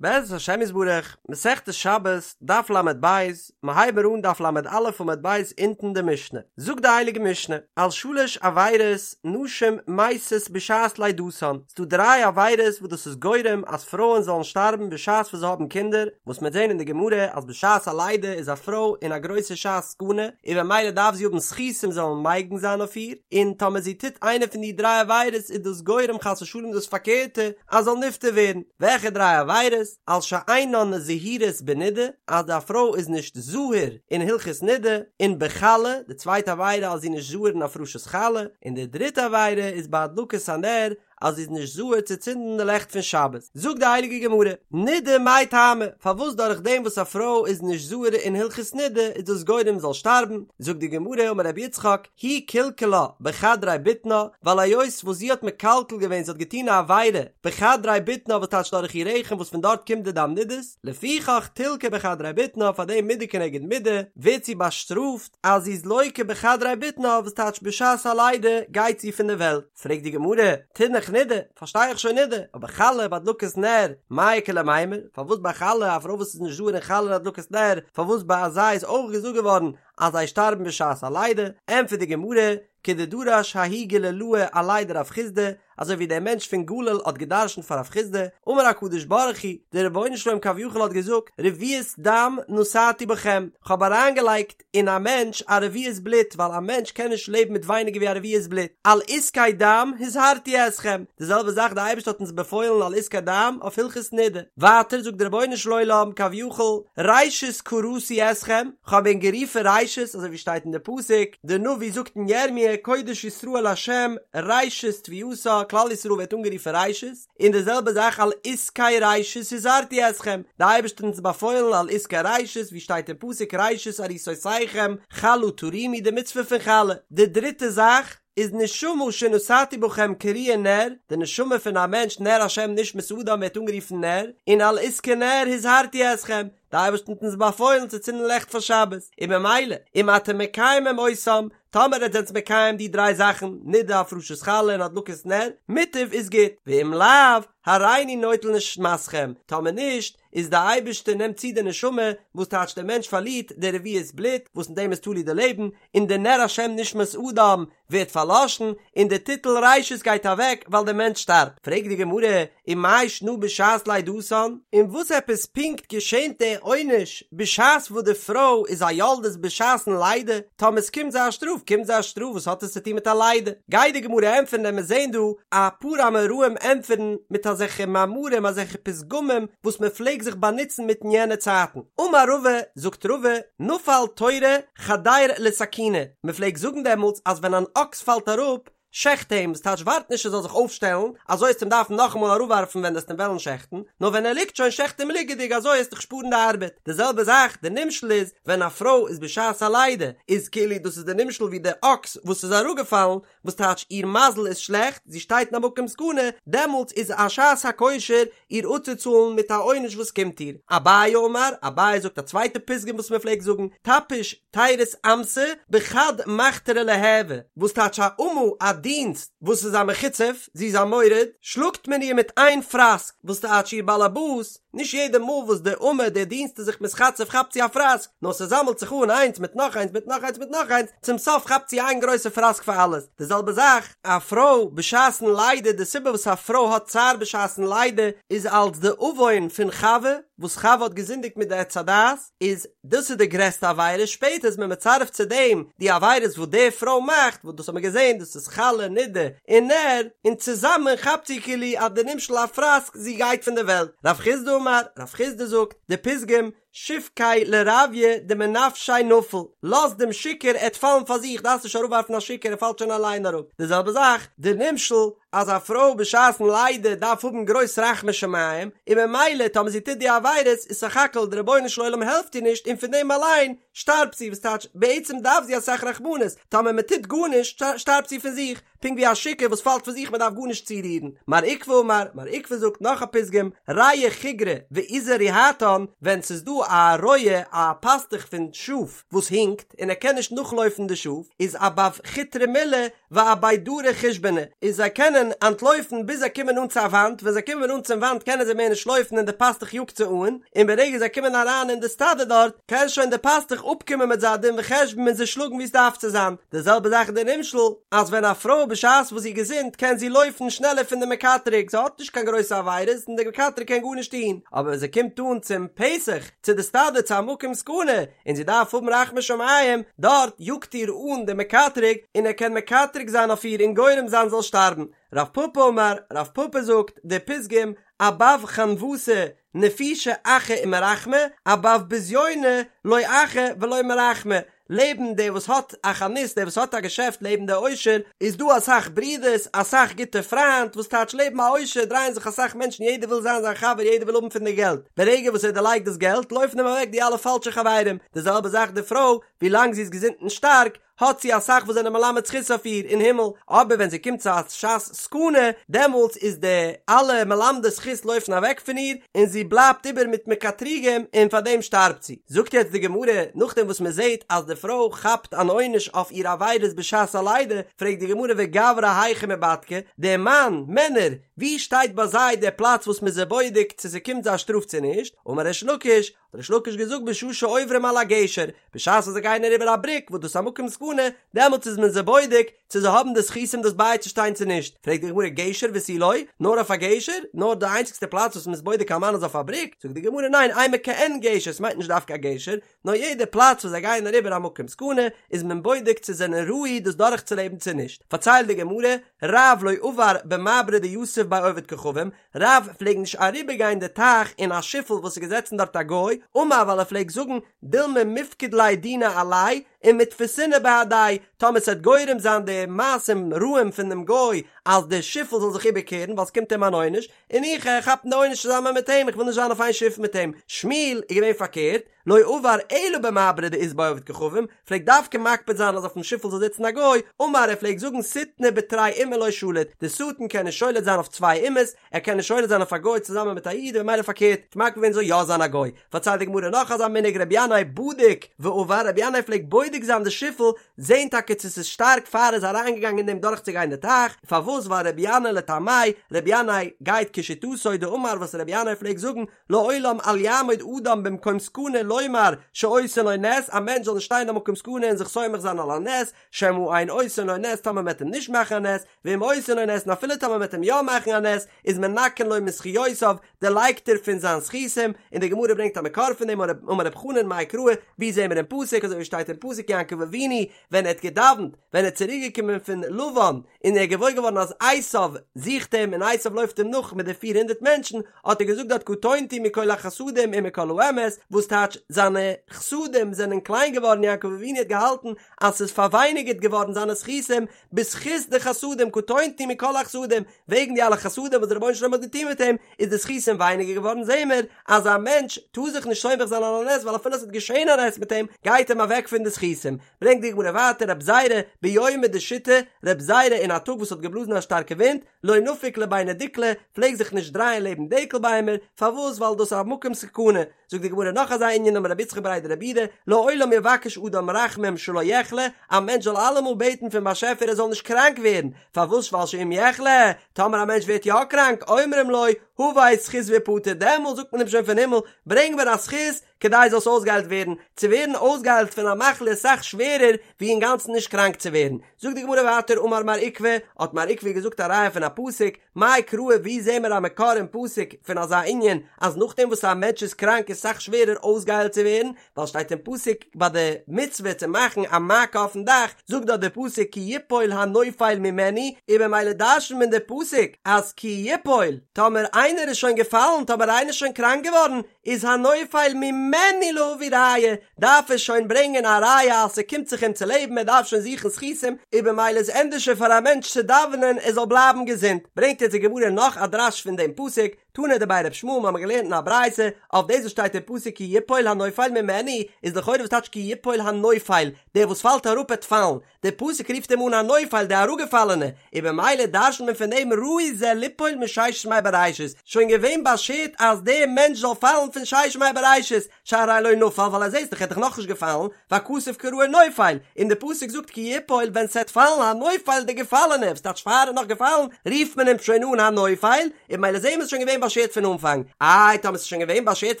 בעזרת השם יתברך, מסכת שבת, דף ל"ב, מ'הייב מיר אן דף ל"א עמוד ב' אונטן די משנה. זאגט די הייליגע משנה, על שלש עבירות נשים מתות בשעת לידתן, ס'דא דריי עבירות וואס דאס איז גורם אז פרויען זאלן שטארבן בשעת וואס זיי האבן קינדער, וואס מ'וועט זען אין די גמרא אז בשעת א לידה איז א פרוי אין א גרויסע שעת סכנה, און במילא דארף זי האבן זכותים זאלן מגין זיין אויף איר, און טאמער זי טוט איינע פון די דריי עבירות איז דאס גורם חס ושלום דאס פארקערטע, אז זאל נפטר ווערן, וועלכע דריי עבירות? על שאינן זהירות בנידה, אז די פרוי איז נישט זהיר אין הלכות נידה, און בחלה, די צווייטע עבירה אז זי איז נישט זהיר אין הפרשת חלה, און די דריטע עבירה איז בהדלקת הנר, אז זי איז נישט זהיר צו צינדן די לעכט פון שבת. זאגט די הייליגע גמרא, נידה מאי טעמא, פארוואס דורך דעם וואס א פרוי איז נישט זהיר אין הלכות נידה איז דאס גורם זאל שטארבן, זאגט די גמרא אמר רבי יצחק, היא קלקלה בחדרי בטנה, ווייל היות וואס זי האט מקלקל געווען זי האט געטון א עבירה בחדרי בטנה וואס טייטש דורך איר רחם וואס פון דארט קומט די דם נידות, לפיכך תלקה בחדרי בטנה פאר דעם מידה כנגד מידה ווערט זי באשטראפט אז זי איז לוקה בחדרי בטנה וואס טייטש בשעת הלידה גייט זי פון די וועלט. פרעגט די גמרא, תינח נידה, פארשטיי איך שוין נידה, אבער חלה והדלקת נר, מאי איכא למימר, פארוואס ביי חלה, א פרוי וואס איז נישט זהיר אין חלה און הדלקת נר, פארוואס ביי אזא איז אויך געזאגט געווארן אז זיי שטארבן בשעת הלידה, ענטפערט די גמרא, כדדרש ההוא גלילאה עליה דרב חסדא, אזוי ווי דער מענטש פון גליל האט געדרשנט פאר רב חסדא, אמר הקדוש ברוך הוא, דער רבונו של עולם כביכול האט געזאגט, רביעית דם נתתי בכם, כ'האב אריינגעלייגט אין א מענטש א רביעית בלוט, ווייל א מענטש קען נישט לעבן מיט ווייניגער ווי א רביעית בלוט, על עסקי דם הזהרתי אתכם, די זעלבע זאך די אייבערשטער האט אונז באפוילן על עסקי דם אויף הלכות נידה, ווייטער זאגט דער רבונו של עולם כביכול, ראשית קראתי אתכם, כ'האב ענק גערופן ראשית, אזוי ווי שטייט אין די פסוק, די נביא זאגט אין ירמיה, קודש ישראל לה' ראשית תבואתה, כלל ישראל ווערט אנגערופן ראשית, און די זעלבע זאך על עסקי ראשית הזהרתי אתכם, די אייבערשטער האט אונז באפוילן על עסקי ראשית, ווי שטייט אין פסוק ראשית עריסותיכם חלה תרימו די מצוה פון חלה, די דריטע זאך, איז נשמה שנתתי בכם קרויה נר, די נשמה פון א מענטש נר השם נשמת אדם ווערט אנגערופן נר, און על עסקי נר הזהרתי אתכם, די אייבערשטער האט אונז באפוילן צו צינדן לעכט פאר שבת, און במילא, אם אתם מקיימים אותם, טאמער עטס זענטס מקיים די דריי זאכן, נידה הפרשת חלה און הדלקת נר, מוטב איז גוט, ואם לאו, הריני נוטל נשמתכם, טאמער נישט, איז די אייבערשטער נעמט צו די נשמה, וואס טייטש דער מענטש פארלירט די רביעית בלוט, וואס אין דעם איז תלוי די לעבן, און די נר השם נשמת אדם ווערט פארלאשן, און די טיטל ראשית גייט אוועק ווייל דער מענטש שטארבט. פרעגט די גמרא, ומאי שנא בשעת לידתן? און וואס עפעס פונקט געשענט דער עונש בשעת וואס די פרוי איז א יולדת בשעת'ן לידה? טאמער עס קומט זיי א שטראף קומט זיי א שטראף וואס האט עס צו טון מיט א לידה? גייט די גמרא ענטפערן וועלן מיר זעהן דא א פאר אמוראים ענטפערן מיט אזעלכע מאמרים אזעלכע פתגמים וואס מען פלעג זיך באנוצן מיט אין יענע צייטן. אמר רבא, זאגט רבא, נפל תורא חדיר לסכינא, מען פלעגט זאגן דעמאלטס אז ווען אן אקס פאלט אראפ, שעכט אים, ס'טייטש ווארט נישט ער זאל זיך אויפשטעלן, אזוי עסט אים דארפן נאכאמאל אראפווארפן ווען עסט אים וועלן שעכטן, נאר ווען ער ליגט שוין שעכט אים ליגעדיג אזוי עסט דיך שפארן די ארבעט. די זעלבע זאך, די נמשל איז, ווען א פרוי איז בשעת א לידה, איז כאילו דאס איז די נמשל ווי די אקס וואס איז אראפגעפאלן, וואס טייטש איר מזל איז שלעכט, זי שטייט אין א מקום סכנה, דעמאלטס איז א שעת הכושר איר אפצוצאלן מיט א עונש וואס קומט איר. אביי אמר, אביי זאגט א צווייטע פתגם וואס מען פלעגט זאגן, טפיש תירוס אמתא בחד מחטרא ליהוי, וואס טייטש א אמה א דינסט וואס איז א מחוצף, זי איז א מורד, שלאגט מען איר מיט איין פראסק, וואס טייטש איר באלעבאס, נישט יעדע מאל וואס די אמה די דינסט איז זיך מתחצף כאפט זי א פראסק, נאר ס'זאמעלט זיך אן איינס מיט נאך איינס מיט נאך איינס מיט נאך איינס, צום סוף כאפט זי איין גרויסע פראסק פאר אלעס. די זעלבע זאך, א פרוי בשעת'ן לידה, די סיבה וואס א פרוי האט צער בשעת'ן לידה איז אלס די עוון פון חווה, וואס חווה האט געזינדיגט מיט די עץ הדעת, איז דאס איז די גרעסטע עבירה, שפעטער איז מען מצרף צו דעם די עבירות וואס די פרוי מאכט, וואס דאס האט מען געזען, דאס איז חלה, נידה, און נר, און צוזאמען כאפט זי כאילו אז די נמשל א פראסק, זי גייט פון די וועלט. רב חסדא אמר, רב חסדא זאגט, די פתגם, שבקיה לרביא דמנפשיה נפיל, לאז דעם שיכור ער וועט פאלן פאר זיך, דארפסט נישט אראפווארפן א שיכור ער פאלט שוין אליין אראפ, די זעלבע זאך, די נמשל, אז א פרוי בשעת'ן לידה דארף האבן גרויס רחמי שמים, און ממילא טאמער זי טוט די עבירות איז סך הכל די רבונו של עולם העלפט איר נישט און פון דעם אליין שטארבט זי, וואס טייטש בעצם דארף זי אסאך רחמנות, טאמער מען טוט גארנישט שטארבט זי פון זיך, פונקט ווי א שיכור וואס פאלט פון זיך מען דארף גארנישט צורירן. מר עוקבא אמר, מר עוקבא זאגט נאך א פתגם, רעי חיגרא ועיזי ריהטן, ווען ס'איז דא א רועה א פאסטוך פון שאף וואס הינקט און ער קען נישט נאכלויפן די שאף, איז אבב חוטרא מילי ואבי דרי חושבנא, איז זיי קענען אנטלויפן ביז זיי קומען אן צו א וואנט, ווען זיי קומען אן צום וואנט קענען זיי מער נישט לויפן און די פאסטוך יאגט זיי אן, און ברגע זיי קומען אריין אין די סטאדע דארט, קען שוין די פאסטוך אפקומען מיט זיי א דין וחשבון און זיי שלאגן ווי עס דארף צו זיין. די זעלבע זאך איז די נמשל, אז ווען א פרוי בשעת וואס זי איז געזונט קען זי לויפן שנעלער פון די מקטרג, זי האט נישט קיין גרויסע עבירות און די מקטרג קען גארנישט טון, אבער ווען זי קומט אן צום פתח, צו די סטאדע צו א מקום סכנה, און זי דארף האבן רחמי שמים, דארט יאגט איר אן די מקטרג, און ער קען מקטרג זיין אויף איר און גורם זיין זי זאל שטארבן. רב פפא אמר, רב פפא זאגט, די פתגם, אבב חנוותא נפישי אחי ומרחמי, אבב בזיונא לא אחי ולא מרחמי, לעבן דער וואס האט א חנות, דער וואס האט א געשעפט לעבן דער עושר, איז דא אסאך ברידערס, אסאך גוטע פריינט, וואס טייטש לעבן א עושר דרייען זיך אסאך מענטשן יעדער וויל זיין זיין חבר יעדער וויל האבן פון די געלט, ברגע וואס ער דערלייגט דאס געלט לויפן אים אוועק די אלע פאלשע חברים, די זעלבע זאך די פרוי, ווי לאנג זי איז געזונט און שטארק, האט זי אסאך וואס זענען מלמד זכות אויף איר אין הימל, אבער ווען זי קומט צו א שעת סכנה, דעמאלטס איז די אלע מלמדי זכות לויפן אוועק פון איר, און זי בלייבט איבער מיט מקטריגים און פאר דעם שטארבט זי. זאגט יעצט די גמרא, נאכדעם וואס מען זעט אז די פרוי כאפט אן עונש אויף איר עבירות בשעת הלידה, פרעגט די גמרא וגברא היכא מיבדקי, די מאן, מענער, ווי שטייט ביי זיי דער פלאץ וואס מען איז זיי בודק צו ס'קומט זיי א שטראף צו נישט, אמר ריש לקיש, האט ריש לקיש געזאגט בשעה שעוברים על הגשר, בשעת וואס זיי גייען אריבער א בריק וואס דאס איז א מקום סכנה, דעמאלטס איז מען זיי בודק צו זיי האבן די זכותים דאס בייצושטיין צו נישט, פרעגט די גמרא גשר ותו לא, נאר אויף א גשר? נאר די איינציגסטע פלאץ וואס מען איז בודק א מאן איז אויף א בריק? זאגט די גמרא ניין אימא כעין גשר, ס'מיינט נישט דווקא א גשר, נאר יעדע פלאץ וואס זיי גייען אריבער א מקום סכנה איז מען בודק צו זענען ראוי דאס דורכצולעבן צו נישט, פארציילט די גמרא, רב לא עבר במברא דיתיב ביה עובד כוכבים, רב פלעג נישט אריבערגיין די טייך אין א שיפל וואס איז געזעצן דארט א גוי, אמר ווייל ער פלעג זאגן, דילמא מיפקד ליה דינא עליה ומתפסינא בהדיה, טאמער ס'עט גורם זיין די מעשים רעים פון דעם גוי אז די שיפל זאל זיך איבערקערן ווייל ס'קומט אים אן עונש, און איך גיי כאפן די עונש צוזאמען מיט אים, איך וויל נישט זיין אויף איין שיף מיט אים. שמואל איז געווען פארקערט, לא עבר אלא במברא דאית ביה עובד כוכבים, פלעגט דווקא מקפיד זיין אז אויפן שיפל זאל זיצן א גוי, אמר ער פלעגט זאגן שטנא בתרי אומי לא שליט, די שטן קען נישט שולט זיין אויף צוויי אומות, ער קען נישט שולט זיין אויף א גוי צוזאמען מיט א איד און ממילא פארקערט, האט מקפיד געווען זאל יא זיין א גוי. פארציילט די גמרא נאך אזא מנהג רבי ינאי בדיק ועבר, רבי ינאי פלעגט בודק זיין די שיפל, זען טאקע צו ס'איז שטארק פאר ער איז אריינגעגאנגען אין דעם דורכצוגיין די טייך, פארוואס ווייל רבי ינאי לטעמי', רבי ינאי גייט כשיטתו דאמר וואס רבי ינאי פלעגט זאגן, לעולם אל יעמוד אדם במקום סכנה לומר שעושין לו נס, א מענטש זאל נישט שטיין אין א מקום סכנה און זיך סומך זיין על הנס, שמא אין עושין לו נס טאמער מ'עט אים נישט מאכן א נס, ואם עושין לו נס און אפילו טאמער מ'עט אים יא מאכן א נס, איז מנכין לו מזכיותיו, דערלייגט ער פון זיין זכותים, און די גמרא ברענגט א מקור פון דעם, אמר רב חנן מאי קרא, ווי זעהן מיר אין פסוק, אזוי ווי שטייט אין פסוק יעקב אבינו ווען ער האט געדאווענט, ווען ער איז צוריק געקומען פון לבן, און ער איז געוואויר געווארן אז עשיו זוכט אים און עשיו לויפט אים נאך מיט די פיר הונדערט מענטשן, האט ער געזאגט דארט קטונתי מכל החסדים ומכל האמת, וואס טייטש זיינע חסדים זענען קליין געווארן, יעקב אבינו האט געהאלטן אז ס'איז פארווייניגערט געווארן זיינע זכותים בזכות די חסדים, קטונתי מכל החסדים, וועגן די אלע חסדים וואס דער רבונו של עולם האט געטון מיט אים, איז די זכותים ווייניגער געווארן, זעהן מיר אז א מענטש טאר זיך נישט סומך זיין על הנס ווייל אפילו עס וועט געשעהן א נס מיט אים, גייט אים אוועק פון די זכותים. ברענגט די גמרא ווייטער רב זירא ביומא דשיטי, רב זירא אין א טאג וואס האט געבלאזן א שטארקע ווינט, לא נפיק לביני דיקלי, פלעג זיך נישט דרייען לעבן דקל ביימער, פארוואס ווייל דאס איז א מקום סכנה, זאגט די גמרא נאך אזא ענין אמר רב יצחק בריה דרב יהודה, לעולם יבקש אדם רחמים שלא יחלה, א מענטש זאל אלעמאל בעטן פון באשעפער ער זאל נישט קראנק ווערן, פארוואס ווייל שאם יחלה, טאמער א מענטש ווערט יא קראנק, אומרים לו, הבא זכות והפטר, דעמאלט זאגט מען אים שוין פון הימל, ברענג מיר א זכות, כדי זאלסט אויסגעהיילט ווערן, צו ווערן אויסגעהיילט פון א מחלה איז אסאך שווערער ווי אינגאנצן נישט קראנק צו ווערן. זאגט די גמרא ווייטער אמר מר עוקבא, האט מר עוקבא געזאגט א ראיה פון א פסוק, מאי קרא ווי זעהן מיר א מקור אין פסוק פון אזא ענין אז נאכדעם וואס א מענטש איז קראנק איז אסאך שווערער אויסגעהיילט צו ווערן, ווייל שטייט אין פסוק ביי די מצוה צו מאכן א מעקה אויפן דאך, זאגט דארט די פסוק כי יפול הנופל ממנו, און במילא דרש'נט מען די פסוק אז כי יפול, טאמער איינער איז שוין געפאלן, טאמער איינער איז שוין קראנק געווארן, איז הנופל ממנו להביא ראיה, דארף ער שוין ברענגען א ראיה אז ס'קומט זיך אים צו לעבן, ער דארף שוין זוכן זכותים, און במילא איז ענדערשער פאר א מענטש צו דאווענען ער זאל בלייבן געזונט. ברענגט יעצט די גמרא נאך א דרש פון דעם פסוק, תנא דבי ר' ישמעאל מ'האמיר געלערנט אין א ברייתא אויף דאס וואס שטייט אין פסוק כי יפול הנופל ממנו איז לכאורה וואס טייטש כי יפול הנופל דער וואס פאלט אראפ עט פאלן דער פסוק רופט אים אן הנופל די אראפגעפאלענע און במילא דרש'נט מען פון דעם ראוי זה ליפול מששת ימי בראשית שוין געווען באשערט אז דער מענטש זאל פאלן פון ששת ימי בראשית שהרי לא נפל ווייל אז זעסט דאך ער איז דאך נאכנישט געפאלן והכתוב קראו נופל און די פסוק זאגט כי יפול ווען ס'עט פאלן הנופל די געפאלענע וואס טייטש פאר ער איז נאך געפאלן רופט מען אים שוין אן הנופל און במילא זעהן מיר ס'איז שוין געווען באשערט פון אנפאנג איי טאמער ס'איז שוין געווען באשערט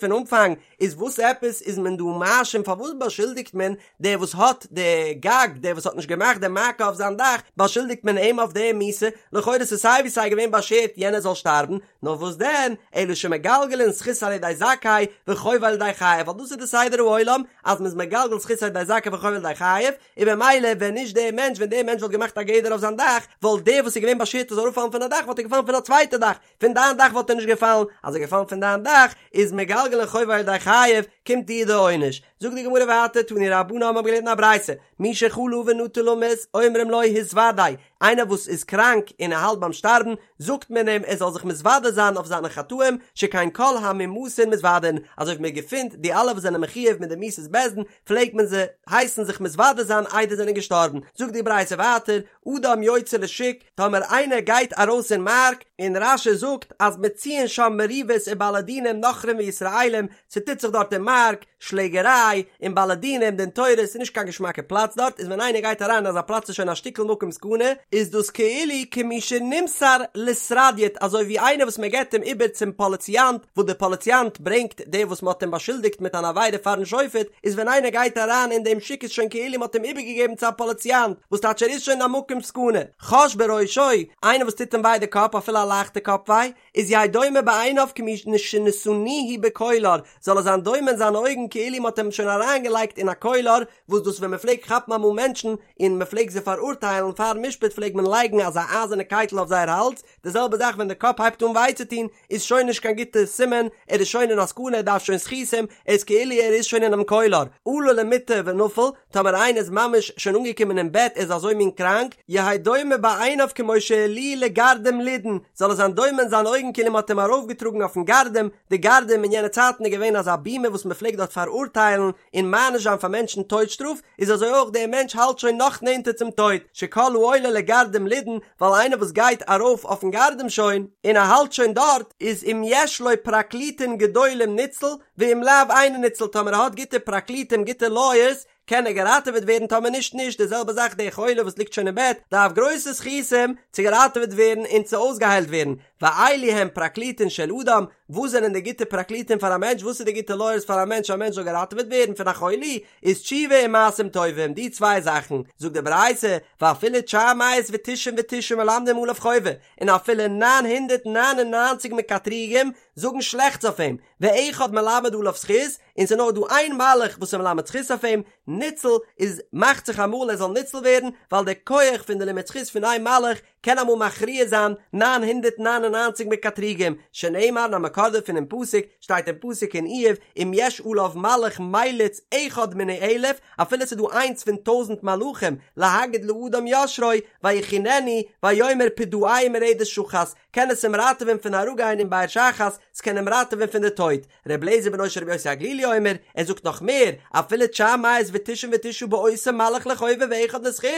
פון אנפאנג איז וואס עפעס איז מען דא מאשים פארוואס באשולדיגט מען דער וואס האט די גג דער וואס האט נישט געמאכט די מעקה אויף זיין דאך באשולדיגט מען אים אויף די מיתה לכאורה ס'איז סיי ווי סיי געווען באשערט יענער זאל שטארבן נאר וואס דען, אלא שמגלגלין זכות על ידי זכאי וחובה על ידי חייב, ווייל דאס איז די סדר העולם אז מ'איז מגלגל זכות על ידי זכאי וחובה על ידי חייב, און במילא ווען נישט דער מענטש ווען דער מענטש וואלט געמאכט א גדר אויף זיין דאך, וואלט דער וואס איז געווען באשערט ער זאל אראפפאלן פון א דאך וואלט ער געפאלן פון א צווייטע דאך, פון דיין דאך וואלט ער נישט געפאלן, אז ער איז געפאלן פון דיין דאך איז מגלגלין חובה על ידי חייב, קומט דיר די עונש. זאגט די גמרא ווייטער, תנו רבנן האבן געלערנט אין א ברייתא, מי שחלה ונטה למות, אומרים לו התוודה, איינער וואס איז קראנק און ער האלט ביים שטארבן, זאגט מען אים ער זאל זיך מתוודה זיין אויף זיינע חטאים, שכן כל המומתין מתוודין, אזוי ווי מען געפינט די אלע וואס זענען מחויב מיט די מיתת בית דין, פלעגט מען זיי הייסן זיך מתוודה זיין איידער זיי זענען געשטארבן, זאגט די ברייתא ווייטער, אדם יוצא לשוק, טאמער איינער גייט ארויס אין מארק, און רש"י זאגט אז מצויין שם מריבות ובעלי דינים נכרים וישראלים, ס'טוט זיך דארט אין מארק, שלעגעריי, און בעלי דינים, דין תורה, ס'איז נישט קיין געשמאקע פלאץ דארט, איז ווען איינער גייט אריין אין אזא פלאץ איז שוין א שטיקל מקום סכנה, איז דאס כאילו כמי שנמסר לסרדיוט אזוי ווי איינער וואס מען געבט אים איבער צום פאליציאנט, וואס דער פאליציאנט ברענגט דער וואס מען האט אים באשולדיגט מיט אן עבירה פארן שופט, איז ווען איינער גייט אריין אין דעם שוק איז שוין כאילו מען האט אים איבערגעגעבן צו א פאליציאנט, וואס טייטש ער איז שוין אין א מקום סכנה. חש בראשו, איינער וואס טוט אים וויי די קאפ אפילו א לייכטע קאפ וויי, איז יהא דומה בעיניו כמי שנתנוהו בקולר, זאל ער זיין דומה אין זיינע אויגן כאילו מ'האט אים שוין אריינגעלייגט אין א קולר, וואס דאס ווען מ'פלעגט כאפן אמאל מענטשן און מ'פלעגט זיי פאראורטיילן פארן משפט פלעגט מען לייגן אזא אייזערנע קייטל אויף זייער האלז, די זעלבע זאך ווען די קאפ הייבט אן וויי צו טון איז שוין נישט קיין גוטע סימן, ער איז שוין אין א סכנה ער דארף שוין זכותים, ער איז כאילו ער איז שוין אינעם קולר, עלה למיטה ונפל, טאמער איינער איז ממש שוין אנגעקומען אין בעט ער איז אזוי מין קראנק, יהא דומה בעיניו כמו שהעלוהו לגרדום לידון, זאל ער זיין דומה אין זיינע אויגן כאילו מען האט אים ארויפגעטראגן אויפן גרדום, די גרדום אין יענע צייטן איז געווען אזא בימה וואס מען פלעגט דארט פאראורטיילן און מעניש זיין פאר מענטשן טויט שטראף, איז אזוי אויך דער מענטש האלט שוין נאך נענטער צום טויט, שכל העולה לגרדום לידון, ווייל איינער וואס גייט ארויף אויפן גרדום שוין, און ער האלט שוין דארט, איז אם יש לו פרקליטין גדולים ניצל, ואם לאו אינו ניצל טאמער ער האט גוטע פרקליטים גוטע לויערס קען ער געראטעוועט ווערן טאמער נישט נישט די זעלבע זאך דער חולה וואס ליגט שוין אין בעט דארף גרויסע זכותים צו געראטעוועט ווערן און צו אויסגעהיילט ווערן ואלו הם פרקליטין של אדם וואס זענען די גוטע פרקליטים פאר א מענטש וואס איז די גוטע לויערס פאר א מענטש א מענטש זאל געראטעוועט ווערן פון א חולי איז תשובה און מעשים טובים די צוויי זאכן זאגט די ברייתא ואפילו תשע מאות ותשעים ותשעה מלמדים עליו חובה און אפילו 999 מקטריגים זאגן שלעכטס אויף אים ואחד מלמד עליו זכות, און ס'איז נאר דא איין מלאך וואס איז מלמד זכות אויף אים, ניצל, איז מאכט זיך אמאל ער זאל ניצל ווערן, ווייל דער כח פון די לימוד זכות פון איין מלאך קען אמאל מכריע זיין 999 מקטריגים, שנאמר און א מקור דערפון אין פסוק, שטייט אין פסוק אין איוב, אם יש עליו מלאך מליץ אחד מני אלף, אפילו ס'איז דא איינס פון טויזנט מלאכים, להגיד לאדם ישרו, ויחננו, ויאמר פדעהו מרדת שחת, קען עס אים ראטעווען פון אראפגיין אין באר שחת, ס'קען אים ראטעווען פון די טויט. ר' אליעזר בנו של רבי יוסי הגלילי אומר, ער זאגט נאך מער, אפילו תשע מאות ותשעים ותשעה באותו מלאך לחובה ואחד לזכות,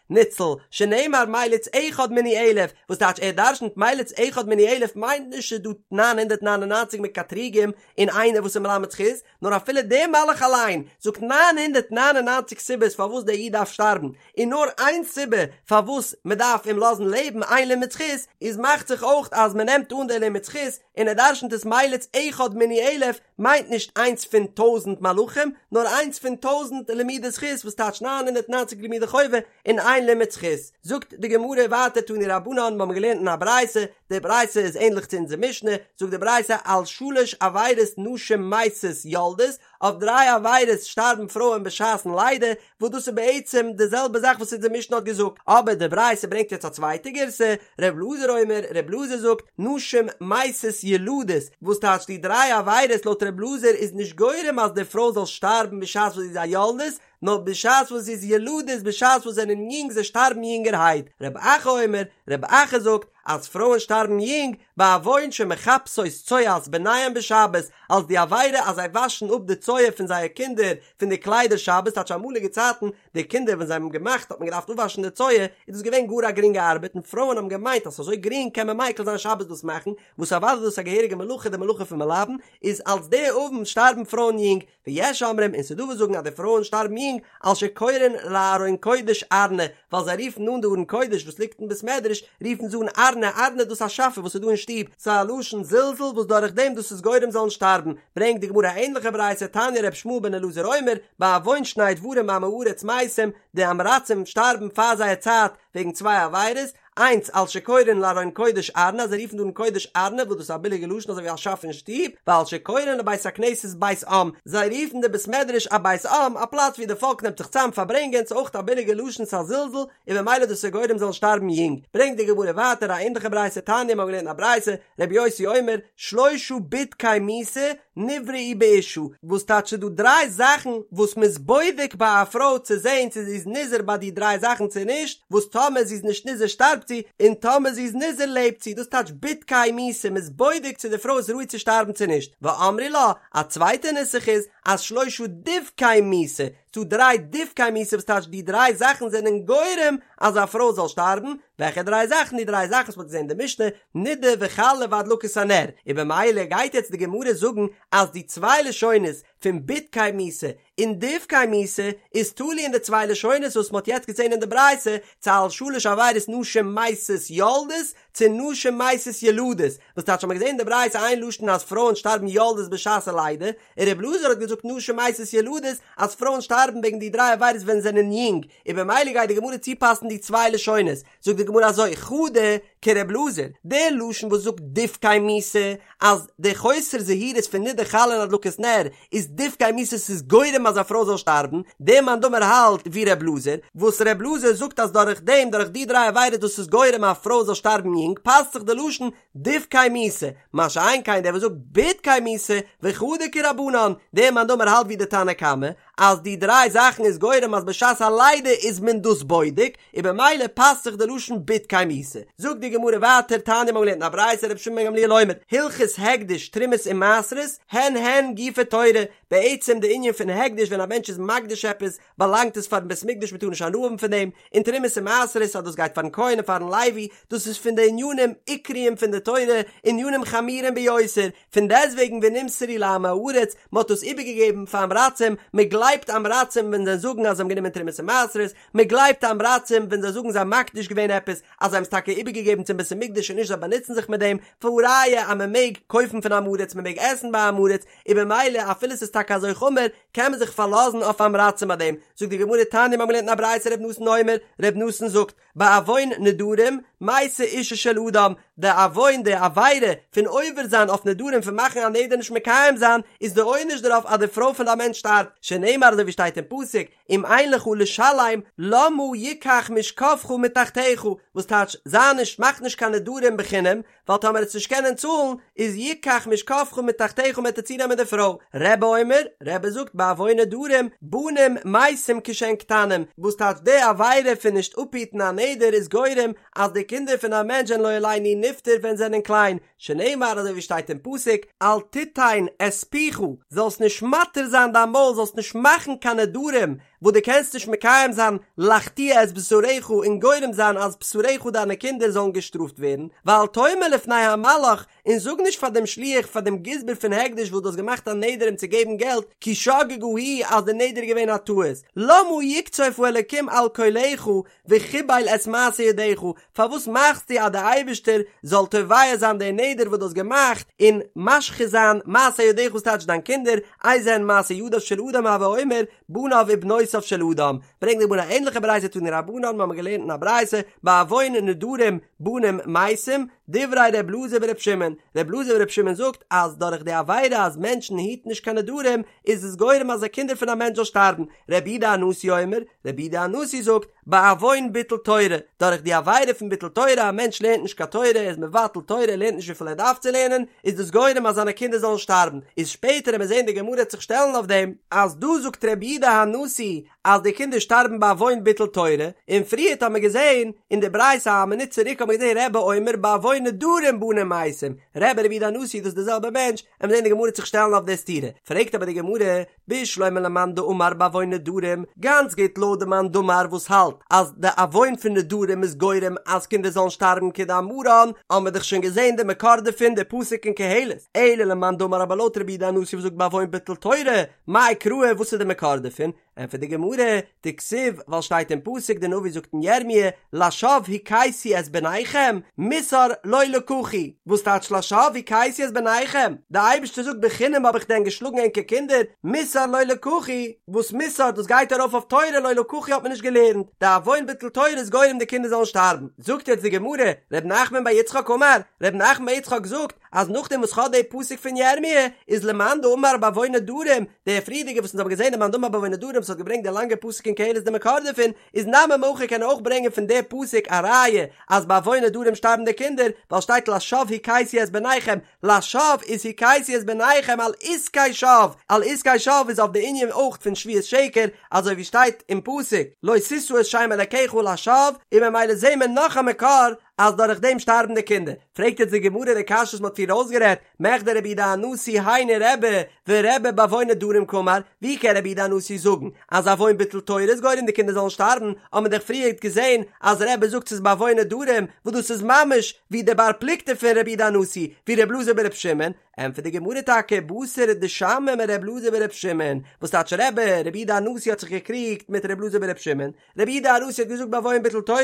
ניצל, שנאמר מליץ אחד מני אלף, וואס טייטש ער דרשנ'ט מליץ אחד מני אלף מיינט נישט ס'איז דא 999 מקטריגים און איינער וואס איז מלמד זכות, נאר אפילו דער מלאך אליין זאגט 999 סיבות פארוואס דער איד דארף שטארבן, און נאר איין סיבה פארוואס מען דארף אים לאזן לעבן איין לימוד זכות, איז מאכט זיך אויך אז מען נעמט אן דער לימוד זכות און ער דרשנ'ט עס מליץ אחד מני אלף מיינט נישט איינס פון טויזנט מלאכים נאר איינס פון טויזנט לימודי זכות וואס טייטש 990 לימודי חובה און איין לימוד זכות. זאגט די גמרא ווייטער תנו רבנן מיר האבן געלערנט אין א ברייתא, די ברייתא איז ענדליך צו אונזער משנה, זאגט די ברייתא על שלש עבירות נשים מתות יולדות, אויף דריי עבירות שטארבן פרויען בשעת'ן לידה, וואס דאס איז בעצם די זעלבע זאך וואס אונזער משנה האט געזאגט, אבער די ברייתא ברענגט יעצט א צווייטע גירסא, ר' אלעזר אומר, ר' אלעזר זאגט, נשים מתות ילדות, וואס טייטש די דריי עבירות לויט ר' אלעזר איז נישט גורם אז די פרוי זאל שטארבן בשעת וואס זי איז א יולדת, נאר בשעת וואס זי איז ילדות בשעת וואס זענען יונג זיי שטארבן יונגערהייט, רב אחא אומר, רב אחא זאגט, אז פרויען שטארבן יונג, בעוון שמכבסות צואת בניהם בשבת, אלס די עבירה אז זיי וואשן אפ די צואה פון זייער קינדער פון די קליידער שבת, טייטש אמאליגע צייטן די קינדער ווען זיי האבן געמאכט האט מען געדארפט אפוואשן די צואה, איז דאס געווען גאר א גרינגע ארבעט און פרויען האבן געמיינט אז ס'איז אזוי גרינג קען מען מיקל זיין שבת דאס מאכן, וואס אוודאי איז דאס א געהעריגע מלאכה די מלאכה פון מלבן, איז אלס די עוון שטארבן פרויען יונג, ויש אומרים און ס'דא וואס זאגן אז די פרויען שטארבן יונג על שקורין לארון קודש ארנא, ווייל זיי רופן אן די ארון קודש וואס ליגט אין בית מדרש רופן זיי אן ארנא, ארנא דאס א שאפע וואס איז דא אין שטוב, ס'איז א לשון זלזול וואס דורך דעם דאס איז גורם זאלן שטארבן, ברענגט די גמרא א ענליכע ברייתא תניא ר' ישמעאל בן אלעזר אומר, בעוון שני דברים עמי הארץ מתים, די עם הארצים שטארבן פאר זייער צייט וועגן צוויי עבירות, איינס על שקורין לארון קודש ארנא אז זיי רופן די ארון קודש ארנא וואס דאס איז א ביליגע לשון אזוי ווי א שאף אין שטוב, ועל שקורין לבית הכנסת בית עם, זיי רופן די בית מדרש א בית עם, א פלאץ ווי די פאלק נעמט זיך צאם פארברענגען, ס'איז אויך א ביליגע לשון ס'איז א זלזול, און ממילא דאס איז גורם זאלן שטארבן יונג. ברענגט די גמרא ווייטער א ענליכע ברייתא תניא מ'האט געלערנט א ברייתא, רבי יוסי אומר, שלושה בדקי מיתה נבראו באשה, וואס טייטש ס'איז דא דריי זאכן וואס מ'איז בודק ביי א פרוי צו זען צו זי איז נזהר ביי די דריי זאכן צו נישט, וואס טאמער זי איז נישט נזהר שטארבט זי, און טאמער זי איז נזהר לעבט זי, דאס טייטש בדקי מיתה, מ'איז בודק צו די פרוי איז ראוי צו שטארבן צו נישט, ואמרי לה, א צווייטע נוסח איז, אז שלושה דבקי מיתה, ס'דא דריי דבקי מיתה וואס טייטש די דריי זאכן זענען גורם אז א פרוי זאל שטארבן, וועלכע דריי זאכן? די דריי זאכן וואס מ'האט געזען אין די משנה, נידה וחלה והדלקת הנר, און במילא גייט יעצט די גמרא זאגן אז די צוויי לשונות פון בדקי מיתה און דבקי מיתה איז תלוי אין די צוויי לשונות וואס מ'האט יעצט געזען אין די ברייתא, צו על שלש עבירות נשים מתות יולדות צו נשים מתות ילדות, וואס טייטש האט מען געזען אין די ברייתא איין לשון אז פרויען שטארבן יולדות בשעת הלידה, און ר' אלעזר האט געזאגט נשים מתות ילדות אז פרויען שטארבן וועגן די דריי עבירות ווען זיי זענען יונג, און במילא גייט די גמרא צופאסן די צוויי לשונות, זאגט די גמרא אזוי, חדא כר' אלעזר, די לשון וואס זאגט דבקי מיתה אז די חוסר זהירות פון נידה חלה און הדלקת נר איז דבקי מיתה ס'איז גורם אז א פרוי זאל שטארבן, דער מאן דאמר האלט ווי ר' אלעזר, וואס ר' אלעזר זאגט אז דורך דעם דורך די דריי עבירות דאס איז גורם א פרוי זאל שטארבן יונג פאסט זיך די לשון דבקי מיתה, מה שאין כן דער וואס זאגט בדקי מיתה, וחדא כרבנן, דער מאן דאמר האלט ווי די תנא קמא, אז די דריי זאכן איז גורם אז בשעת הלידה איז מען דאס בודק, און במילא פאסט זיך די לשון בדקי מיתה. זאגט די גמרא ווייטער, תניא מ'האט געלערנט אין א ברייתא רבי שמעון בן גמליאל אומר, הלכות הקדש תרומות ומעשרות, הן הן גופי תורה, בעצם די ענין פון הקדש ווען א מענטש איז מקדיש עפעס, באלאנגט עס פארן בית מקדש מ'טאר נישט הנאה האבן פון דעם, און תרומות און מעשרות אז דאס גייט פארן כהן און פארן לוי, דאס איז פון די ענינים עיקריים פון די תורה, ענינים חמורים ביותר, פון דעסטוועגן ונמסרו לעמי הארץ, מען האט דאס איבערגעגעבן פאר עם הארצים, מען גלייבט עם הארצים ווען זיי זאגן אז זיי האבן גענומען תרומות און מעשרות, מען גלייבט עם הארצים ווען זיי זאגן זיי האבן מקדיש געווען עפעס, אז זיי האבן עס טאקע איבערגעגעבן צום בית המקדש און נישט זיי באנוצן זיך מיט דעם, והא ראיה אז מען מעג קויפן פון עם הארץ, מען מעג עסן ביי עם הארץ, און במילא אפילו ס'איז טאקע אזוי חמור, קען מען זיך פארלאזן אויף עם הארצים ביי דעם, זאגט די גמרא תניא מ'האט געלערנט אין א ברייתא ר' נתן אומר, ר' נתן זאגט, בעוון נדרים, מתה אשו של אדם, די עוון די עבירה פון עובר זיין אויף נדרים פון מאכן א נדר נישט מקיים זיין, איז די עונש דערויף אז די פרוי פון די מענטש שטארבט, שנאמר אזוי ווי שטייט אין פסוק, אם אין לך לשלם למה יקח משכבך מתחתיך, וואס טייטש, זיי נישט מאך נישט קיין נדרים בחינם, ווייל טאמער עסט נישט קענען צאלן, איז יקח משכבך מתחתיך מ'עט דיר צונעמען די פרוי. רבי אומר, רבי זאגט בעוון נדרים, בנים מתים כשהן קטנים, וואס טייטש די עבירה פון נישט אפהיטן א נדר איז גורם אז די קינדער פון א מענטש זענען לא עלינו נפטר ווען זענען קליין, שנאמר אזוי ווי שטייט אין פסוק, אל תיתן את פיך, זאלסט נישט מתיר זיין דיין מויל, זאלסט נישט מאכן קיין נדרים וואס דו קענסט נישט מקיים זיין, לחטיא את בשרך און גורם זיין אז בשרך דיינע קינדער זאלן געשטראפט ווערן, ואל תאמר לפני המלאך, און זאג נישט פאר דעם שליח פאר דעם גזבר פון הקדש וואס דו האסט געמאכט א נדר אים צו געבן געלט, כי שגגה היא אז די נדר איז געווען א טעות, למה יקצוף האלקים על קולך וחיבל את מעשה ידיך, פארוואס מאכסטו אז דער אייבערשטער זאל תובע זיין די נדר וואס דו האסט געמאכט און משחית זיין מעשה ידיך וואס טייטש דיין קינדער, איזה הן מעשה ידיו של אדם הוי אומר בניו ובנותיו של אדם, ברענגט די גמרא א ענליכע ברייתא תנו רבנן מיר האבן געלערנט אין א ברייתא בעוון נדרים בנים מתים, דברי ר' אלעזר בר' שמעון, ר' אלעזר בר' שמעון זאגט אז דורך די עבירה אז מענטשן היטן נישט קיין נדרים איז עס גורם אז די קינדער פון א מענטש זאל שטארבן, רבי יהודה הנשיא אומר, רבי יהודה הנשיא זאגט, בעוון ביטול תורה, דורך די עבירה פון ביטול תורה, א מענטש לערנט נישט קיין תורה, ער איז מבטל תורה, ער לערנט נישט וויפיל ער דארף צו לערנען, איז דאס גורם אז זיינע קינדער זאלן שטארבן, איז שפעטער וועט מען זען די גמרא וועט זיך שטעלן אויף דעם, אז דא זאגט רבי יהודה הנשיא אז די קינדער שטארבן בעוון ביטול תורה, און פריערט האט מען געזען אין די ברייתא א מינוט צוריק האט מען געזען רבי אומר בעוון נדרים בנים מתים, רבי רבי יהודה הנשיא דאס איז די זעלבע מענטש, וועט מען זען די גמרא וועט זיך שטעלן אויף די סתירה, פרעגט אבער די גמרא, בשלמא למאן דאמר בעוון נדרים, גאנץ גוט לויט די מאן דאמר וואס האלט אז די עוון פון נדרים איז גורם אז קינדער זאלן שטארבן כדאמרן, האבן מיר דאך שוין געזען די מקור דערפון די פסוק אין קהלת, אלא למאן דאמר אבער לויט רבי יהודה הנשיא וואס זאגט בעוון ביטול תורה, מאי קרא וואס איז די מקור דערפון? ענטפערט די גמרא, דכתיב, ווייל שטייט אין פסוק די נביא זאגט אין ירמי', לשווא הכיתי את בניכם, מוסר לא לקחו, וואס טייטש לשווא הכיתי את בניכם? די אייבערשטער זאגט בחינם האב איך דען געשלאגן ענקער קינדער, מוסר לא לקחו, וואס מוסר דאס גייט ארויף אויף תורה לא לקחו האט מען נישט געלערנט, די עוון ביטול תורה איז גורם די קינדער זאלן שטארבן, זאגט יעצט די גמרא, ר' נחמן בר יצחק אמר, ר' נחמן בר יצחק זאגט, אז נאכדעם וואס כ'האב די פסוק פון ירמי' איז למאן דאמר בעוון נדרים, דער פריערדיגער וואס אונז האבן געזען די מאן דאמר בעוון נדרים וואס האט געברענגט די לאנגע פסוק אין קהלת די מקור דערפון, איז נמי מהכא קען ער אויך ברענגען פון די פסוק א ראיה אז בעוון נדרים שטארבן די קינדער, ווייל שטייט לשווא הכיתי את בניכם, לשווא איז הכיתי את בניכם על עסקי שוא, על עסקי שוא איז אויף די ענין אויך פון שבועת שקר, אזוי ווי שטייט אין פסוק לא תשא את שם אלקיך לשווא, און ממילא זעהן מיר נאך א מקור אז דורך דעם שטארבן די קינדער. פרעגט יעצט די גמרא די קשיא וואס מ'האט פריער אויסגערעדט, מכדי רבי יהודה הנשיא היינו רבי, ורבי בעוון נדרים קאמר, ווי קען רבי יהודה הנשיא זאגן אז עוון ביטול תורה איז גורם די קינדער זאלן שטארבן, האט מען דאך פריערט געזען אז רבי זאגט ס'איז בעוון נדרים, וואס דאס איז ממש ווי די בר פלוגתא פון רבי יהודה הנשיא, ווי רבי אלעזר ברבי שמעון, ענטפערט די גמרא טאקע בתר דשמעיה מרבי אלעזר ברבי שמעון, וואס טייטש רבי, רבי יהודה הנשיא האט זיך געקריגט מיט רבי אלעזר ברבי שמעון, רבי יהודה הנשיא האט געזאגט בעוון ביטול תורה,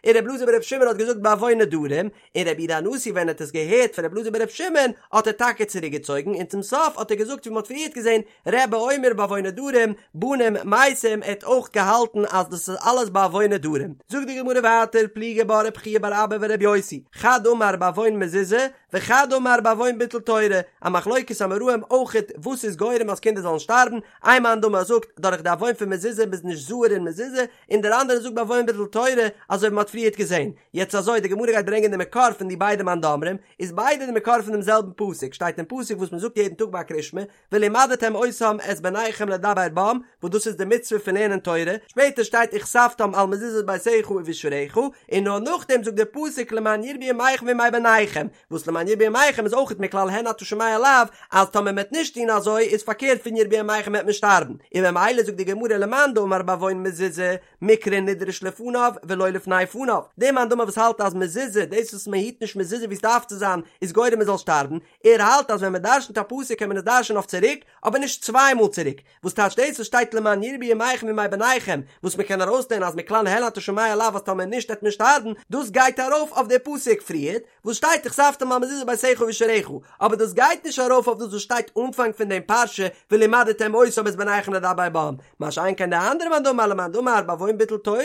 און רבי אלעזר ברבי שמעון האט געזאגט בעוון נדרים, און רבי יהודה הנשיא ווען ער האט עס געהערט פון רבי אלעזר ברבי שמעון האט ער טאקע צוריק געצויגן און צום סוף האט ער געזאגט ווי מען האט פריערט געזען רבי אומר בעוון נדרים בנים מתים ער האט אויך געהאלטן אז דאס איז אלעס בעוון נדרים. זאגט די גמרא ווייטער פליגי בה רב חייא בר אבא ורבי יוסי, חד אמר בעוון מזוזה וחד אמר בעוון ביטול תורה, א מחלוקת אמוראים אויכעט וואס איז גורם אז קינדער זאלן שטארבן, איין מאן דאמר זאגט דורך די עוון פון מזוזה מ'איז נישט זהיר אין מזוזה, און דער אנדערער זאגט בעוון ביטול תורה, אזוי ווי מ'האט פריערט געזען. יעצט אזוי, די גמרא גייט ברענגען די מקור פון די ביידע מאן דאמרים, איז ביידע די מקור פון דעם זעלבן פסוק, שטייט אין פסוק וואס מ'זאגט יעדן טאג ביי קריאת שמע, ולמדתם אותם את בניכם לדבר בם, וואס דאס איז די מצוה פון לערנען תורה, שפעטער שטייט וכתבתם על מזוזות ביתך ובשעריך, און נאר נאכדעם זאגט דער פסוק למען ירבו ימיכם וימי בניכם, וואס למען ירבו ימיכם איז אויכעט מכלל הן אתה שומע לאו, אז טאמער מען וועט נישט טון אזוי איז פארקערט פון ירבו ימיכם וועט מען שטארבן, און ממילא זאגט די גמרא למאן דאמר בעוון מזוזה, מקרא נדרש לפניו ולא לפני פניו, דער מאן דאמר וואס האלט אז מזוזה, דאס וואס מען היט נישט מזוזה ווי עס דארף צו זיין, איז גורם מען זאל שטארבן, ער האלט אז ווען מען דרשנ'ט א פסוק קען מען עס דרש'נען אויף צוריק, אבער נישט צוויי מאל צוריק, וואס טייטש דאס וואס שטייט למען ירבו ימיכם וימי בניכם, וואס מען קען ארויסלערנען אז מכלל הן אתה שומע לאו אז טאמער נישט וועט מען שטארבן, דאס גייט ארויף אויף די פסוק פריערט וואס שטייט וכתבתם על מזוזות ביתך ובשעריך, אבער דאס גייט נישט ארויף אויף דאס וואס שטייט אנפאנג פון דעם פרשה ולמדתם אותם את בניכם לדבר בם, מה שאין כן די אנדערע מאן דאמר למאן דאמר בעוון ביטול תורה,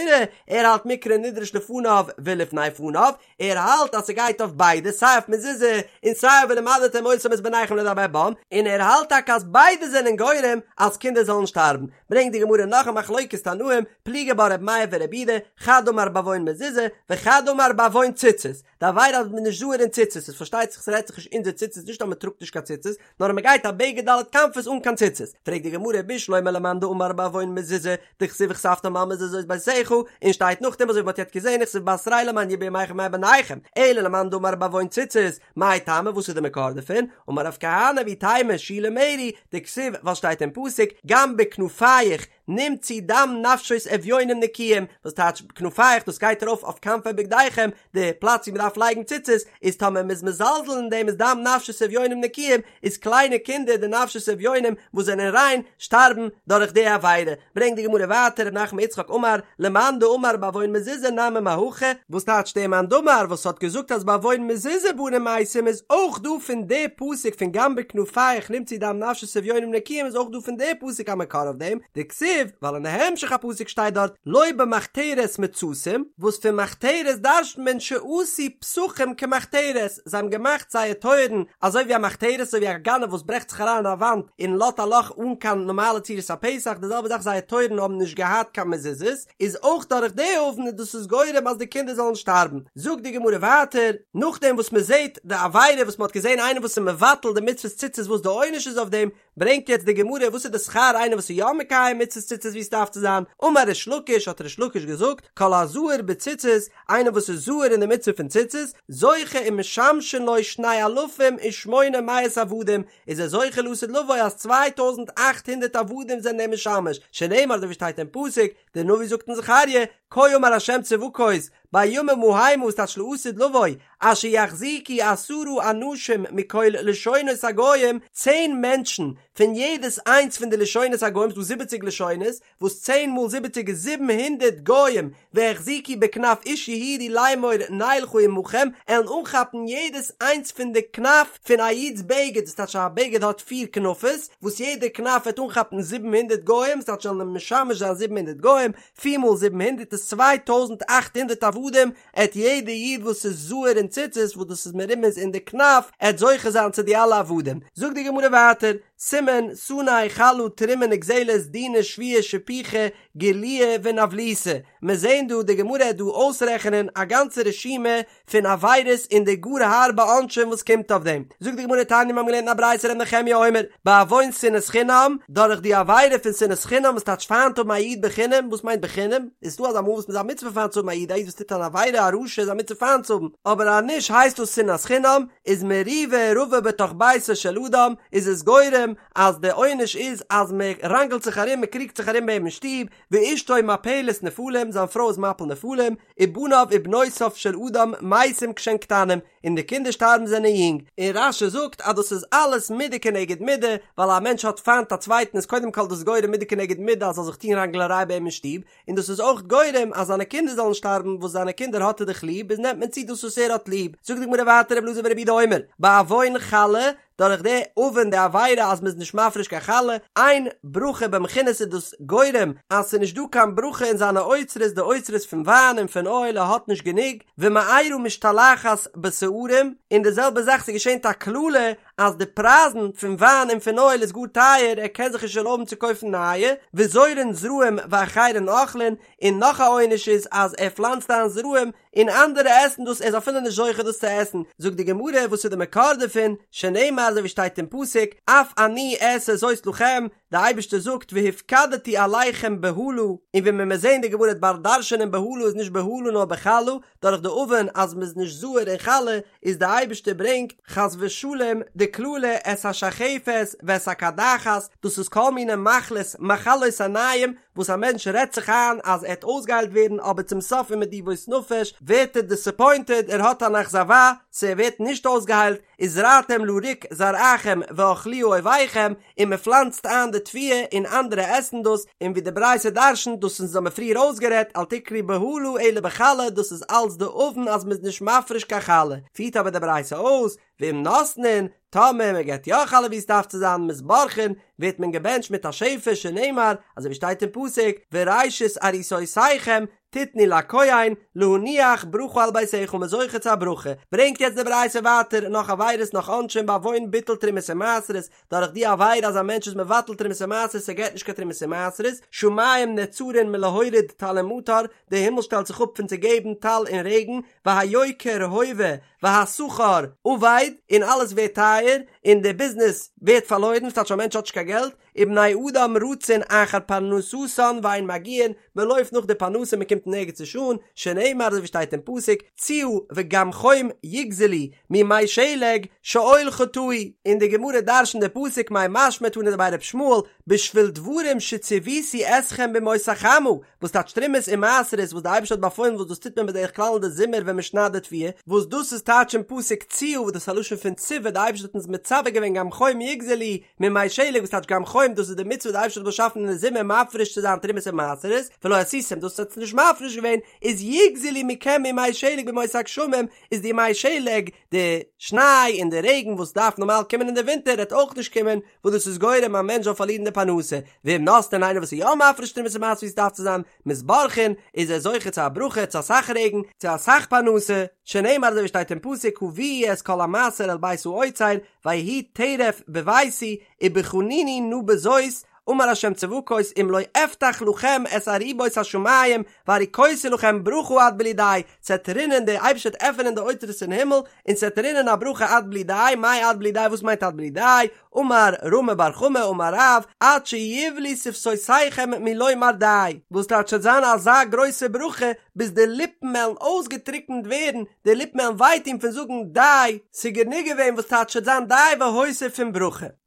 ער האלט מקרא נדרש לפניו ולפני פניו, ער האלט אז ס'גייט אויף ביידע סיי אויף מזוזה און סיי אויף ולמדתם אותם את בניכם לדבר בם, און ער האלט טאקע אז ביידע זענען גורם אז קינדער זאלן שטארבן, ברענגט די גמרא נאך א מחלוקת תנאים, פליגי בה ר' מאיר ור' יהודה, חד אמר בעוון מזוזה, וחד אמר בעוון ציצית, די עבירה אז מ'איז נישט זהיר אין ציצית, עס פארשטייט זיך ס'רעדט זיך נישט אונזער ציצית נישט אז מ'טראגט נישט קיין ציצית, נאר אז מ'גייט א בגד ד' כנפות אן קיין ציצית, פרעגט די גמרא בשלמא למאן דאמר בעוון מזוזה, דכתיב וכתבתם על מזוזות ביתך, און שטייט נאכדעם אזוי ווי מ'האט יעצט געזען וכתיב בתריה למען ירבו ימיכם וימי בניכם, אלא למאן דאמר בעוון ציצית, מאי טעמא וואס איז די מקור דערפון? אמר רב כהנא ואיתימא שולה מרי, דכתיב ווייל שטייט אין פסוק גם בכנפיך נמצאו דם נפשות אביונים נקיים, וואס טייטש כנפיך דאס גייט ארויף אויף כנפי בגדיכם, די פלאץ ווי מען דארף לייגן ציצית, איז טאמער מען איז מזלזל אין דעם איז דם נפשות אביונים נקיים, איז קליינע קינדער די נפשות אביונים וואס זענען ריין שטארבן דורך די עבירה, ברענגט די גמרא ווייטער ר' נחמן יצחק אמר למאן דאמר בעוון מזוזה נמי מהכא, וואס טייטש דער מאן דאמר וואס האט געזאגט אז בעוון מזוזה בנים מתים איז אויך דא פון די פסוק פון גם בכנפיך נמצאו דם נפשות אביונים נקיים איז אויך דא פון די פסוק א מקור אויף דעם, דכתיב, ווייל אין די המשך הפסוק שטייט דארט לא במחתרת מצאתים, וואס פון מחתרת דרש'נט מען שעשו. פתחים כמחתרת, זיי האבן געמאכט זייער טויערן אזוי ווי א מחתרת, אזוי ווי א גנב וואס ברעכט זיך אריין אין א וואנט און לאזט א לאך אן קיין נארמאלע צורת הפתח, די זעלבע זאך זייער טויערן האבן נישט געהאט קיין מזוזות, איז אויך דורך די עוון און דאס איז גורם אז די קינדער זאלן שטארבן. זאגט די גמרא ווייטער, נאכדעם וואס מען זעט די עבירה וואס מען האט געזען איינער וואס איז מבטל די מצוות ציצית וואס די עונש איז אויף דעם, ברענגט יעצט די גמרא וואס איז די שכר איינער וואס איז יא מקיים מצוות ציצית ווי עס דארף צו זיין, אמר ריש לקיש האט ריש לקיש געזאגט, כל הזהיר בציצית, איינער וואס איז זהיר אין די מצוה פון ציצית, זוכה ומשמשין לו שני אלפים ושמונה מאות עבדים, איז ער זוכה לעתיד לבוא אז 2800 עבדים זענען אים משמש, שנאמר אזוי ווי שטייט אין פסוק, דער נביא זאגט אין זכריה, כה אמר ה' צבקות, בימים המה ס'טייטש לעתיד לבוא, אשר יחזיקו עשרה אנשים מכל לשונות הגוים, צען מענטשן פון יעדעס איינס פון די לשונות הגוים, ס'דא זיבעציג לשונות, וואס צען מאל זיבעציג איז 700 גוים, והחזיקו בכנף איש יהודי לאמור נלכה עמכם, עלן אנכאפן יעדעס איינס פון די כנף פון א איד'ס בגד, דאס טייטש א בגד האט פיר כנפות, וואס יעדע כנף וועט אנכאפן 700 גוים, ס'טייטש זאלן אים משמש זיין 700 גוים, פיר מאל 700 איז 2800 עבדים, עט יעדע איד וואס איז זהיר אין ציצית וואס דאס איז מרומז אין די כנף, עט זוכה זיין צו די אלע עבדים. זאגט די גמרא ווייטער, סימן, שנא, חלה, תרומה נגזלת, דינא, שבועה, שפיכה, גילויא ונבלותא. מיר זעהן דא די גמרא עט דא אויסרעכענען א גאנצע רשימה פון עבירות און די גאר הארבע עונשים וואס קומט אויף דעם. זאגט די גמרא תניא מיר האבן געלערנט אין א ברייתא ר' נחמיה אומר, בעוון שנאת חינם, דורך די עבירה פון שנאת חינם וואס טייטש פיינט האבן א איד בחינם, וואס מיינט בחינם? איז דא אזא מאל וואס מ'איז א מצוה פיינט צו האבן א איד, א איד וואס טוט אן עבירה א רשע איז א מצוה פיינט צו האבן, אבער אז נישט הייסט דאס שנאת חינם, איז מריבה רבה בתוך ביתו של אדם, איז עס גורם אז די עונש איז אז מען ראנגלט זיך ארום מען קריגט זיך ארום ביי אים אין שטוב, ואשתו מפלת נפלים, זיין פרוי איז מפיל נפלים, ובניו ובנותיו של אדם מתים כשהן קטנים, און די קינדער שטארבן זענען יונג, און רש"י זאגט אז דאס איז אלעס מידה כנגד מידה, ווייל א מענטש האט פיינט א צווייטן איז קודם כל דאס גורם מידה כנגד מידה אז זאל זיך טון ראנגלעריי ביי אים אין שטוב, און דאס איז אויך גורם אז זיינע קינדער זאלן שטארבן וואס זיינע קינדער האט ער דאך ליב איז נעמט מען צו דאס וואס ער האט ליב, זאגט די גמרא ווייטער רבי אלעזר ברבי יהודה אומר, בעוון חלה, דורך די עוון די עבירה אז מ'איז נישט מפריש קיין חלה, אין ברכה במכינות איז דאס גורם אז ס'איז נישט דא קיין ברכה אין זיינע אוצרות די אוצרות פון וויין און פון אויל ער האט נישט גענוג, ומארה משתלחת בשערים, און די זעלבע זאך ס'געשענט א קללה אז די פרייזן פון וויין און פון אויל איז גאר טייער ער קען זיך נישט ערלויבן צו קויפן נייע, וזורעין זרעים ואחרים אוכלין, און נאך א עונש איז אז ער פלאנצט איין זרעים און אנדערע עסן דאס ער איז אפילו נישט זוכה דאס צו עסן, זאגט די גמרא וואס איז די מקור דערפון, שנאמר אזוי ווי שטייט אין פסוק, אף אני אעשה זאת לכם, די אייבערשטער זאגט והפקדתי עליכם בהלה, און ווי מען וועט זען די גמרא וועט באלד דרש'ענען בהלה איז נישט בהלה נאר בחלה, דורך די עוון אז מען איז נישט זהיר אין חלה איז די אייבערשטער ברענגט חס ושלום די קללה את השחפת ואת הקדחת, דאס איז כל מיני מחלות מחלות עיניים וואס א מענטש רעדט זיך איין אז ער וועט אויסגעהיילט ווערן אבער צום סוף ומדיבות נפש ווערט ער דיסעפוינטעד ער האט אן אכזבה ס' ער ווערט נישט אויסגעהיילט וזרעתם לריק זרעכם ואכלוה אויביכם און מען פלאנצט איין די תבואה און אנדערע עסן דאס און ווי די ברייתא דרשנ'ט דאס אונז האמיר פריער אויסגערעדט אל תקרי בהלה אלא בחלה דאס איז אלץ די עוון אז מען איז נישט מפריש קיין חלה פירט אבער די ברייתא אויס ואם נותנין טאמער מען געבט יא חלה ווי עס דארף צו זיין מתברכין, ווערט מען געבענטשט מיט א שפע שנאמר, אזוי ווי שטייט אין פסוק, וראשית עריסותיכם תתנו לכהן, להניח ברכה על ביתך מ'איז זוכה צו א ברכה. ברענגט יעצט די ברייתא ווייטער נאך עבירות נאך עונשים בעוון ביטול תרומות ומעשרות, דורך די עבירה אז א מענטש איז מבטל תרומות ומעשרות ער געבט נישט קיין תרומות ומעשרות, שמים נעצרין מלהוריד טל ומטר, די הימל שטעלט זיך אפ פון צו געבן טל און רעגן, והיוקר הווה והשכר אבד, און אלעס ווערט טייער, און די ביזנעס ווערט פארלוירן, ס'טייטש א מענטש האט נישט קיין געלט, ובני אדם רצין אחר פרנסתן ואין מגיעין, מען לויפט נאך די פרנסה מען קומט נערגעץ נישט אן, שנאמר אזוי ווי שטייט אין פסוק, ציה וגם חום יגזלו מימי שלג שאול חטאו, און די גמרא דרש'נט די פסוק מאי משמע תנא דבי ר' ישמעאל, בשביל דברים שציוויתי אתכם בימות החמה, וואס טייטש תרומות און מעשרות וואס די אייבערשטער האט באפוילן וואס דאס טוט מען בדרך כלל אין די זומער ווען מען שניידט די תבואה, וואס דאס איז טייטש אין פסוק ציה וואס דאס איז א לשון פון ציווי די אייבערשטער האט אונז מצווה. מצווה געווען גם חום יגזלו ממי שלג וואס טייטש גם חום דאס איז די מצוה וואס די אייבערשטער האט באשאפן אין די זומער מפריש צו זיין תרומות און מעשרות ולא עשיתם דאס האט עטס נישט מפריש געווען איז יגזלו מכם ימי שלג בימות הגשמים איז די ימי שלג די שניי און די רעגן וואס דארף נארמאל קומען אין די ווינטער וועט אויך נישט קומען וואס דאס איז גורם א מענטש זאל פארלירן די פרנסה ואם נותנין איינער וואס איז יא מפריש תרומות און מעשרות ווי עס דארף צו זיין מתברכין איז ער זוכה צו א ברכה צו אסאך רעגן צו אסאך פרנסה שנאמר אזוי ווי שטייט אין פסוק הביאו את כל המעשר אל בית האוצר ויהי טרף בביתי ובחנוני נא בזאת אמר ה' צבקות אם לא אפתח לכם את ארובות השמים והריקותי לכם ברכה עד בלי די, ס'עט רינען דער אייבערשטער וועט עפענען די אוצרות אין הימל און ס'עט רינען א ברכה עד בלי די, מאי עד בלי די וואס מיינט עד בלי די, אמר רמי בר חמא אמר רב, עד שיבלו שפתותיכם מלומר די, וואס טייטש ס'עט זיין אזא גרויסע ברכה ביז די ליפן וועלן אויסגעטריקנט ווערן, די ליפן וועלן וויי טון פון זאגן די, ס'גענוג געווען וואס טייטש ס'עט זיין די והוסיף פון ברכה.